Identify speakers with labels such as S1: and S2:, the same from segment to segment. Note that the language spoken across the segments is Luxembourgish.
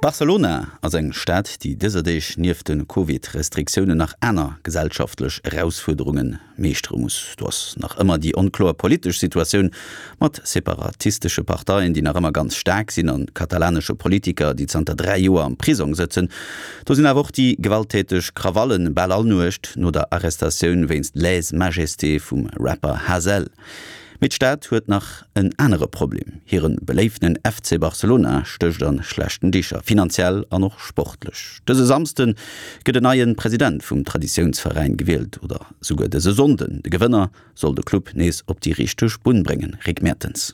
S1: Barcelona ass eng Stad, déi dëser Deeg nieft de Covid-Restriktiounen nach aner gesellschaftlech Erausfuerderunge meeschtere muss. Do ass nach ëmmer déi onkloer politesch Situatioun mat separatistesche Parteien, déi nach ëmmer ganz staark sinn, a katalanesche Politiker, déi zanter 3 Joer am Prisong sëtzen. Do sinn awer och déi gewalttäteg Krawallen bal all Nuecht no der Arrestatioun wéinst Lèse-majesté vum Rapper Hasél. Mee d'Stad huet nach en anere Problem, Hire beléiftenen FC Barcelona stécht a schlechten Dicher, finanziell an och sportlech. Dëse Samsde gëtt en neie President vum Traditiounsveräin gewielt, oder souguer dëse Sonnden. De Gewënner soll de Club nees op déi richteg Bunn bréngen. Rick Mertens.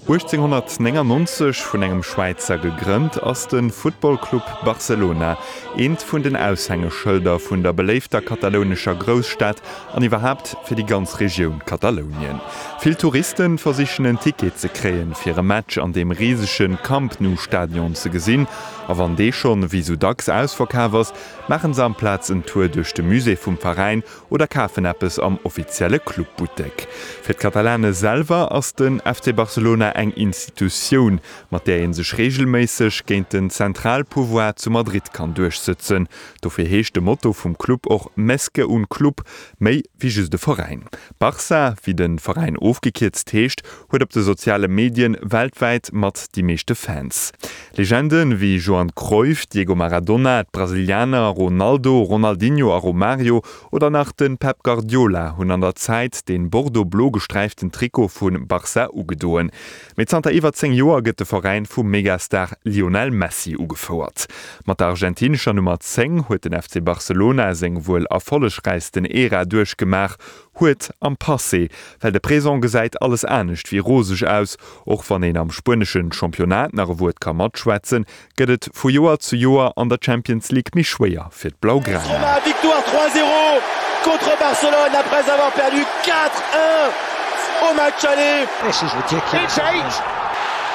S2: 1899 vun engem Schwäizer gegrënnt, ass de Football Club Barcelona eent vun den Aushängeschëlder vun der beléifter katalounescher Grousstad an iwwerhaapt fir déi ganz Regioun Katalounien. Vill Touriste versichen en Ticket ze kréien, fir e Match an deem risege Camp Nou Stadion ze gesinn, a wann dee schonn, wéi sou dacks, ausverkaf ass, maachen se amplaz en Tour duerch de Musée vum Veräin oder kafen eppes am offizielle Clubbuttek. Fir d'Katalane selwer ass den FC Barcelona eng Institutioun, mat där ee sech reegelméisseg géint den Zentralpouvoir zu Madrid kann duerchsëtzen. Dofir heescht de Motto vum Club och Més que un club, méi wéi just e Veräin. Barça, wéi de Veräin ofgekierzt heescht, huet op de soziale Medien weltwäit mat déi meeschte Fans. Legende wéi Johan Cruyff, Diego Maradona, d'Brasilianer Ronaldo, Ronaldinho a Romario oder nach de Pep Guardiola hunn an der Zäit dee bordeaux-blo gesträiften Trikot vu Barça ugedoen. Mee zanter iwwer 10 Joer gëtt de Veräin vum Megastar Lionel Messi ugefouert. Mat der argentinescher Nummer 10 huet den FC Barcelona seng wuel erfollegräichsten Ära duerchgemaach, Huet am Passé, well de Présent gesäit alles anescht wéi roseg aus. Och wann een am spueneschen Championnat nach e Wuert ka matschwätzen, gëtt et vu Joer zu Joer an der Champions League méi schwéier fir d'Blaugrana.
S3: Roma, victoire 3-0 contre Barcelone après avoir perdu 4-1 au match aller. It's 8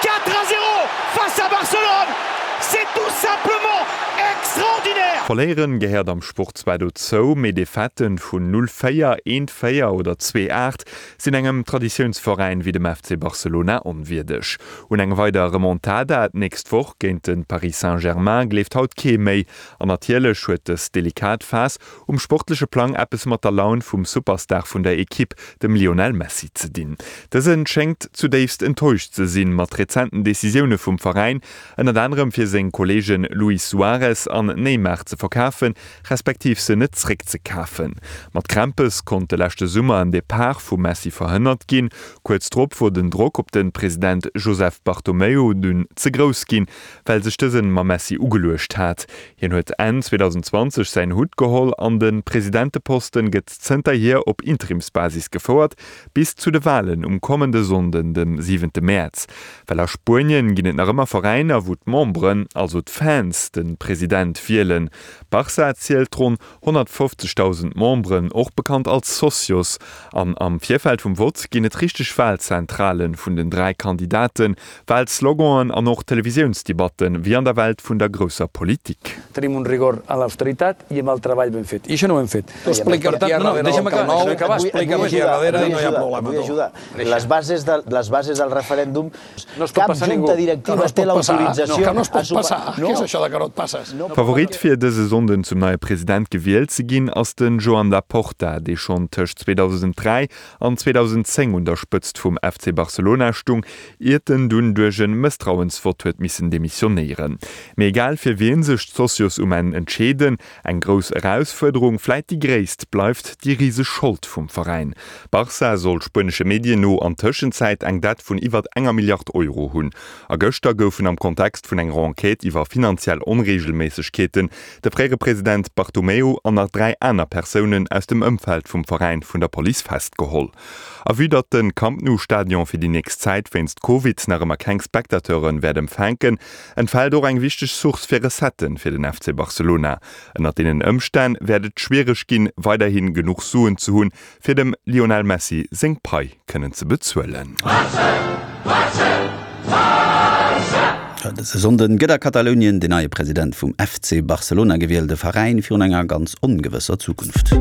S3: 4-0 face à Barcelone, c'est tout simplement extraordinaire!
S2: Verléieren gehéiert am Sport zwar dozou, mee Defaitë vun 0, 4, 1, 4 oder 2, 8 sinn engem Traditiounsveräin wéi dem FC Barcelona onwierdeg. Un eng weider Remontada d'nächst Woch géint de Paris Saint-Germain gleeft haut kee méi. An natierlech huet dës delikat Phas um sportleche Plang eppes mat der Laun vum Superstar vun der Ekipp, dem Lionel Messi, ze dinn. Dëse schéngt zudéifst enttäuscht ze sinn mat rezenten Decisioune vum Veräin, ënnert anerem fir seng Kolleege Luis Suarez an Neymar ze verkafen, respektiv se net zréckzekafen. Mat Krämpes konnt de leschte Summer en Depart vum Messi verhënnert ginn. Kuerz drop wor den Drock op de President Joseph Bartomeu dunn ze grouss ginn, well sech dësen mam Messi ugeluecht hat. Hien huet Enn 2020 säin Hutt geholl an de Presidenteposten gëtt zënterhier op Interimsbasis gefouert, bis zu de Walen um kommende Sonnden, dem siwente Mäerz. Well a Spuenien ginn et nach ëmmer Veräiner, wou d'Memberen, also d'Fans, de President wielen. Barça zielt ronn 150.000 Memberen, och bekannt als Socios. An am Virfeld vum Vott ginn et richteg Walzentrale vun den 3 Kandidaten, Walsloganen an och Televisiounsdebatten, wéi an der Welt vun der grousser Politik.
S4: Tenim un rigor en l'austeritat i amb el treball ben fet. I això no ho hem fet. Tu explica per tant, no, no, deixa'm acabar, deixa'm acabar, explica'm aquí a darrere i no hi ha problema.
S5: Et vull ajudar. Les bases de, les bases del referèndum,
S4: No es pot
S5: cap
S4: passar ningú.
S5: junta directiva
S4: Que no es
S5: té
S4: pot passar.
S5: l'autorització
S4: No, que no es pot
S5: a supa-
S4: passar.
S5: No.
S4: Què és això de que no et passes?
S2: Favorit fir dëse Sonnden zum neie President gewielt ze ginn ass den Joan Laporta, dee schonn tëscht 2003 an 2010 un der Spëtzt vum FC Barcelona stung, iert en dunn duerch en Mësstrauensvott huet missen demissionéieren. Mee egal fir wien sech d'Socios um Enn entscheeden, Eng grouss Erausfuerderung, vläit déi gréisst, bleift déi riseg Schold vum Veräin. Barça soll spuenesche Medien no an Tëschenzäit eng Dett vun iwwert enger Milliard Euro hunn. A gëschter goufen am Kontext vun enger Enquête iwwer finanziell Onreegelméissegkeeten de fréiere President Bartomeu an nach 3 aner Persounen aus dem Ëmfeld vum Veräin vun der Police festgeholl. A vue datt de Camp Nou Stadion fir déi nächst Zäit wéinst Covid nach ëmmer keng Spectateure wäert empfänken, entfält och eng wichteg Source fir Recetten fir den FC Barcelona. Ënnert deenen Ëmstänn wäert et schwiereg ginn, weiderhi genuch Suen ze hunn, fir dem Lionel Messi seng Pai kënnen ze bezuelen.
S1: Dëse Sonnden gëtt a Katalounien den neie President vum FC Barcelona gewielt, e Veräin virun enger ganz ongewësser Zukunft.